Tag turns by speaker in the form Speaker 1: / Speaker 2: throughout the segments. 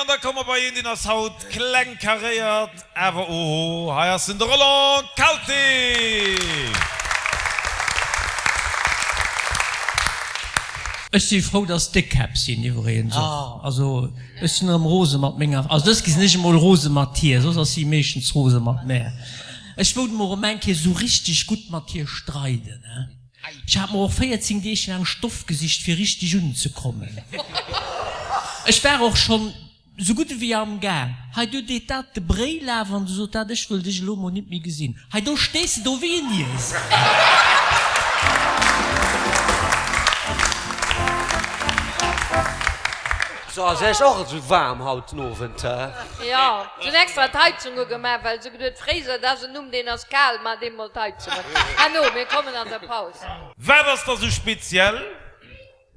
Speaker 1: da komme mer bei een, deen ass haut kleng karéiert, awer oho, hei ass en, de Roland Kalté!
Speaker 2: Ech si frou, dass Déckkäpp sinn iwwregens och. Also ech sinn erëm rose mat menger, also dës Kéier sinn ech emol rose mat hir, soss ass si meeschtens rose mat mär. Ech wollt mol erëm eng Kéier esou richteg gutt mat hir streiden, he. Ech hat mer och 14 Deeg laang Stoff gesicht fir richteg unzekommen. Ech war och schonn sou gutt ewéi am Gaang. Hei do deet dat de Bréi laf an du sot dat, ech wëll dech elo mol nit méi gesinn. Hei do stees de do wéi en Iesel.
Speaker 3: So, ass Iech och esou waarm haut den Owend, he?
Speaker 4: Jo, se hunn extra d'Heizung ugemaach, well se geduet, Fréiser, dat ass en Numm, deen ass kal, maacht eemol d'Heizung un. Herno, mir kommen an der Paus.
Speaker 1: Wat ass da sou speziell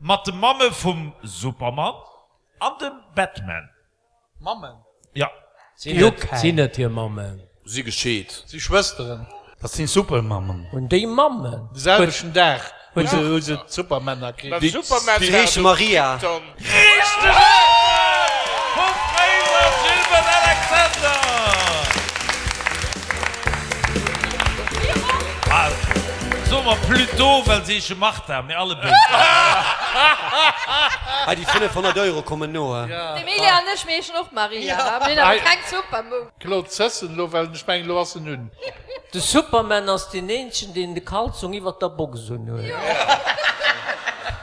Speaker 1: mat de Mamme vum Superman an dem Batman?
Speaker 5: Mammen?
Speaker 1: Jo.
Speaker 2: Sinn et hir Mammen?
Speaker 6: Si gescheet.
Speaker 5: Si Schwësteren.
Speaker 7: Dat sinn Supermammen.
Speaker 2: Hunn déi Mammen?
Speaker 5: De selwechten Dag hu se d'Supermänner kritt.
Speaker 3: Déi heesche Maria.
Speaker 1: Richteg Äntwert vum Fréiser Gilbert Alexander! Soe mer plutôt, well se heesche Martha, mee alle béid.
Speaker 3: Hei déi 500 Euro kommen no.
Speaker 4: D'Emilia an ech, mir heeschen och Maria, mir hunn awer keng Supermum.
Speaker 5: Claude Zessen elo, well ech mengen elo ass en un.
Speaker 2: De Superman ass deen eenzegen deen de Kalzong iwwert der Box un huet.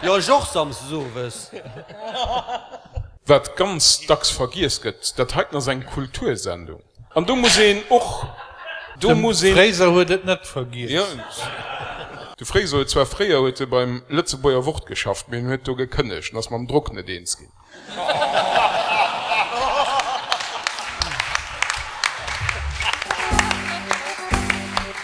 Speaker 3: Jo ech och samsdes owes.
Speaker 8: Wat ganz dacks vergiess gëtt, dat heiten ass eng Kultursendung. An do muss een och, do muss
Speaker 5: een. De Fréiser huet et net vergiess.
Speaker 8: Jo, de Fréiser huet zwar fréier huet e beim Lëtzebuerger Wort geschafft, mee en huet do gekënnegt en ass mam Drock net eens ginn.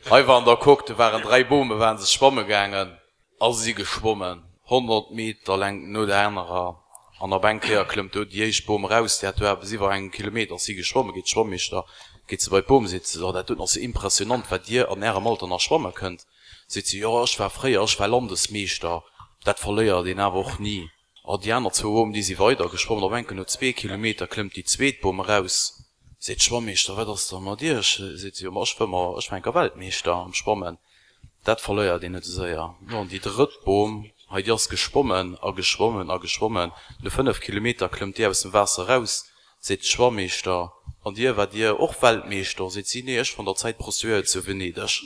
Speaker 6: Hei war an der Coque, do waren 3 Bome, waren se schwamme gaangen a si geschwommen 100 Meter Längt no der anerer an op eng Kéier klëmmt do déi éischt Bom eraus, déi hat do eppes iwwer engem Kilometer ass si geschwommen, geet d'Schwammeeschter, geet se bei d'Bom, seet se, oh dat doten ass jo impressionant wat dir an ärem Alter nach schwamme kënnt, seet se, jo ech war fréier, ech war Landesmeeschter, dat verléiert een awer och ni. A déi aner zwou Bomen, déi si weider geschwommen. Op enken no zwee Kilometer klëmmt déi zweet Bom eraus. Seet d'Schwammeeschter, Wat ass da mat iech? Seet si, Jo, ma ech wëmmer, ech war enker Weltmeeschter am Schwammen. Dat verléiert een net esou séier. Jo, an déi drëtt Bom, hei, déi ass geschwommen a geschwommen a geschwommen. No 5 Kilometer klëmmt déi aus dem Waasser eraus. Seet d'Schwammeeschter, An dir, waart dir och Weltmeeschter? Seet si, Nee, ech war an der Zäit Prostituéiert zu Venedeg.